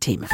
Themen.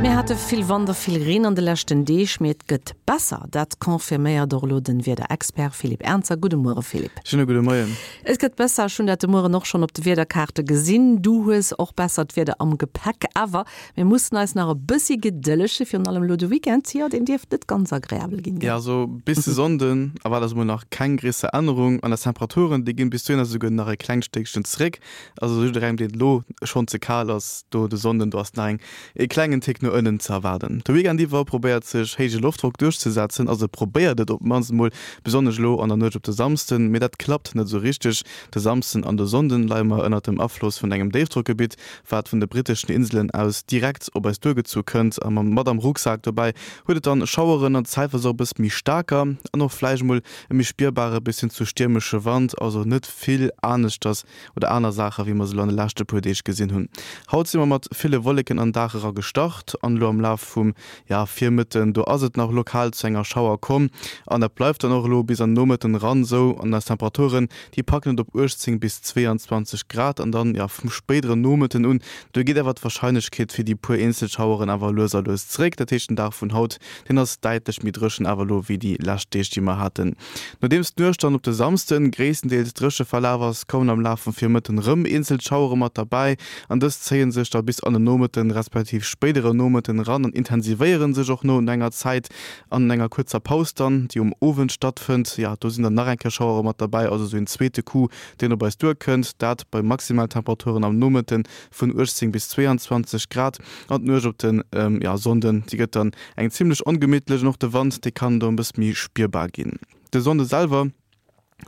Mir hate vill Wand a vill Reen an de leschten Deeg, mee et gëtt besser. Dat confirméiert och elo den Wiederexpert Philippe Ernzer. Gudde Muere Philippe. Schöne gudde Moien. Et gëtt besser, ech hunn dat de Mueren och schonn op de Wiederkaarte gesinn. Du hues och bessert Wieder am Gepäck, awer mir mussen eis nach e bëssi gedëllege, virun allem elo de Weekend, jo, deen dierft net ganz agreabel ginn, gell? Jo, also bis de Sonnden erwaart eis emol nach keng gréisser Ännerung an eis Temperaturen, déi ginn bis dohinner esouguer nach e klengt Stéckchen zeréck. Also jidderengem, deen et elo schonn ze kal ass, do de Sonnden, do ass nach eng e klengen Tick no ënnen ze erwaarden. De Weekend iwwer probéiert sech héije Loftdrock duerchzesetzen, also probéiert et op d'mannst emol, besonnesch elo an der Nuecht op de Samsden, mee dat klappt net esou richteg. De Samsden an de Sonnden leie mer ënnert dem Afloss vun engem Déifdrockgebitt, wat vun de britteschen Inselen aus direkt op eis duergezu kënnt a mat am Rucksak dobäi huet et dann Schaueren an zäitweis och e bësse méi staarker an och vläicht emol e méi spierbare bis hin zu stiermesche Wand, also net vill aneschters oder aner Saache wéi mer se elo an de leschte puer Deeg gesinn hunn. Haut si mer mat ville Wolleken an Dag era gestart an elo am Laf vum, ja, Virmëtten, do ass et nach lokal zu enger Schauer komm an dat bleift dann och elo bis an den Nomëtten eran esou. An eis Temperaturen, déi packen et op 18 bis 22 Grad an dann, ja, vum spéideren Nomëtten un, do geet awer d'Warscheinlechkeet fir déi puer eenzel Schaueren awer lues a lues zeréck. Dat heescht, den Dag vun haut, deen ass däitlech méi dréchen awer elo wéi déi lescht Deeg, déi mer haten. Nodeems d'Nuecht dann op de Samsden gréisstendeels dréche verlaf ass, kommen am Laf vum Virmëtten rëm eenzel Schauere mat derbäi an dës zéie sech da bis an de Nomëtten respektiv spéidere Nomëtten eran an intensivéiere sech och no enger Zäit an enger kuerzer Paus dann, déi um Owend stattfënnt. Jo, do sinn dann nach eng Kéier Schauere mat derbäi, also esou een zweete Coup, deen op eis duerkënnt, dat bei Maximaltemperaturen am Nomëtte vun 18 bis 22 Grad. An d'Nuecht op de Sonnden, déi gëtt dann eng zimmlech ongemittlech an och de Wand, dee kann do e bësse méi spierbar ginn. De Sonnde selwer,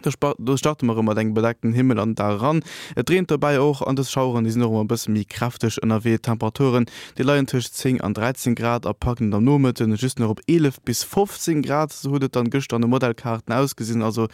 do starte mer erëm mat engem bedeckten Himmel an den Dag eran. Et reent dobäi och an dës Schaueren, déi sinn och ëmmer e bësse méi kräfteg ënnerwee. D'Temperaturen, déi leien tëscht 10 an 13 Grad a packen et am Nomëtte just nach op 11 bis 15 Grad. Esou huet et dann gëschter an de Modellkaarten ausgesinn. Also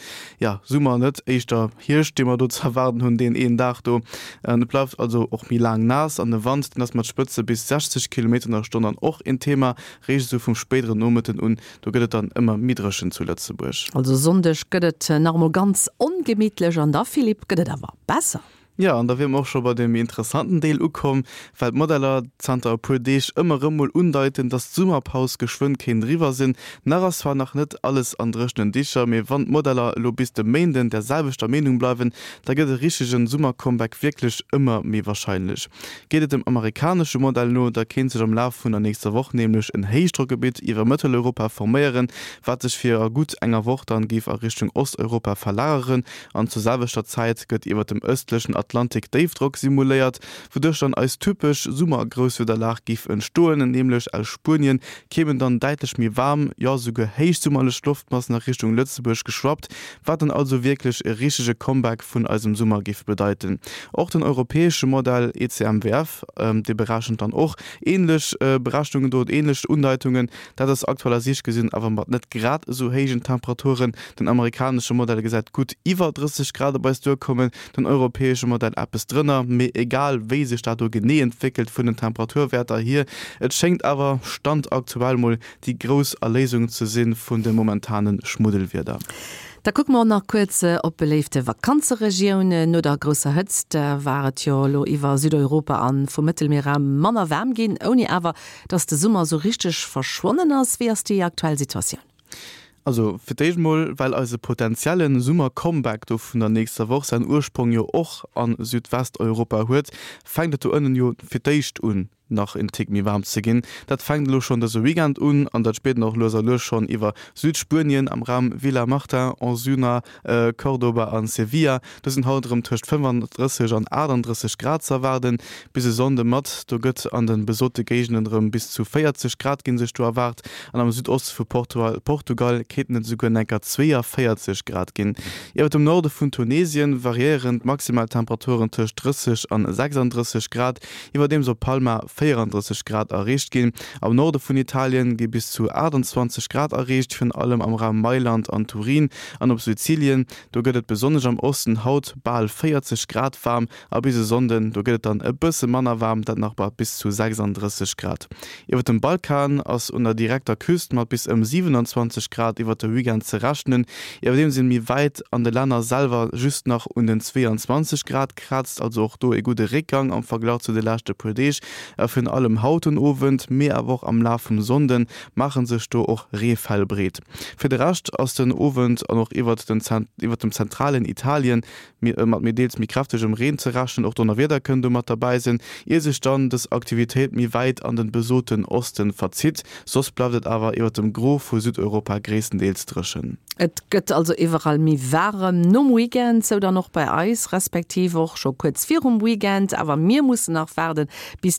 jo, Summer net, éischter Hierscht, dee mer do ze erwaarden hunn, deen een Dag do. Et bleift also och méi laang naass an de Wand, deen ass mat Spëtze bis 60 Kilometer an der Stonn dann och een Thema. Réischt esou vum spéideren Nomëtten un, do gëtt et dann ëmmer méi dréchen zu Lëtzebuerg. Also Sonndeg gëtt et nach emol ganz ongemittlech an da, Philippe, gëtt et awer besser. Jo, an da wier mer och scho bei deem méi interessanten Deel ukomm, well d'Modeller zanter e puer Deeg ëmmer erëm mol undeiten, dass d'Summerpaus geschwënn kéint eriwwer sinn. Nach ass zwar nach net alles an dréchenen Dicher, mee wann d'Modeller elo bis de Méinden der selwechter Meenung bleiwen, da gëtt e richtegen Summercomeback wierklech ëmmer méi warscheinlech. Geet et dem amerikanesche Modell no, da kéint sech am Laf vun der nächster Woch nämlech en Héichdrockgebitt iwwer Mëtteleuropa forméieren, wat sech fir a gutt enger Woch dann géif a Richtung Osteuropa verlageren. An zur selwechter Zäit gëtt iwwer dem ëstlechen Atlantik Déifdrock simuléiert, wouduerch dann eis typesch Summergrousswiederlag géif entstoen, nämlech aus Spuenien kéimen dann däitlech méi waarm, jo esouguer héichsummerlech Loftmassen a Richtung Lëtzebuerg geschwappt, wat dann also wierklech e richtege Comeback vun eisem Summer géif bedeiten. Och den europäesche Modell ECMWF, dee berechent dann och änlech Berechnungen do, änlech Undeitungen, Dat ass aktuell a Siicht gesinn awer mat net grad esou héijen Temperaturen. Den amerikanesche Modell gesäit gutt iwwer 30 Grad op eis duerkommen, den europäesche Modell eppes drënner. Mee egal wéi sech dat do genee entwéckelt vun den Temperaturwäerter hier, et schéngt awer Stand aktuell mol déi grouss Erléisung ze si vun de momentane Schmuddelwieder. Da kucke mer och nach kuerz op beléifte Vakanzeregiounen. No der grousser Hëtzt war et jo elo iwwer Südeuropa an vum Mëttelmierraum manner waarm ginn, ouni awer Dass de Summer sou richteg verschwonnen ass. Wéi ass déi aktuell Situatioun? Also fir d'éischt mol, well eise potenzielle Summer-Comeback do vun der nächster Woch säin Ursprong jo och a Südwesteuropa huet, fänkt et do ënnen jo fir d'éischt un nach en Tick méi waarm ze ginn. Dat fänkt elo schonn dëse Weekend un an dat spiert een och lues a lues schonn iwwer Südspuenien am Raum Villamartin, Osuna, Cordoba an Sevilla. Do sinn haut erëm tëscht 35 an 38 Grad ze erwaarden. Bis e Sonnde mat, do gëtt an de besote Géigenden erëm bis zu 40 Grad ginn sech do erwaart an am Südoste vu Portugal kéinten et esouguer enker 42 Grad ginn. Iwwer dem Norde vun Tunesien variéieren d'Maximaltemperaturen tëscht 30 an 36 Grad, iwwerdeems op Palma 34 Grad erreecht ginn. Am Norde vun Italien gi bis zu 28 Grad erreecht, virun allem am Raum Mailand an Turin an op Sizilien. Do gëtt et besonnesch am Osten haut bal 40 Grad waarm a bis e Sonnden, do gëtt et dann e bësse manner waarm, dat nach bei bis zu 36 Grad. Iwwer dem Balkan ass un der direkter Küst mat bis ëm 27 Grad iwwert de Weekend ze rechnen, iwwerdeems een méi wäit an de Länner selwer just nach un den 22 Grad krazt, also och do e gudde Réckgang am Verglach zu de leschte puer Deeg. A virun allem haut den Owend, mee awer och am Laf vum Sonnden maache sech do och Reefäll breet. Fir de Rescht ass den Owend an och iwwert dem zentralen Italien mat méi deels méi kräftegem Reen ze rechnen. Och Donnerwieder kënnen do mat derbäi sinn, ier sech dann dës Aktivitéit méi wäit an den besoten Osten verzitt. Soss bleift et awer iwwert dem Gros vu Südeuropa gréisstendeels dréchen. Et gëtt also iwwerall méi waarem nom Weekend, sou dann och bei eis, respektiv och scho kuerz virum Weekend. Awer mir mussen nach waarden, bis.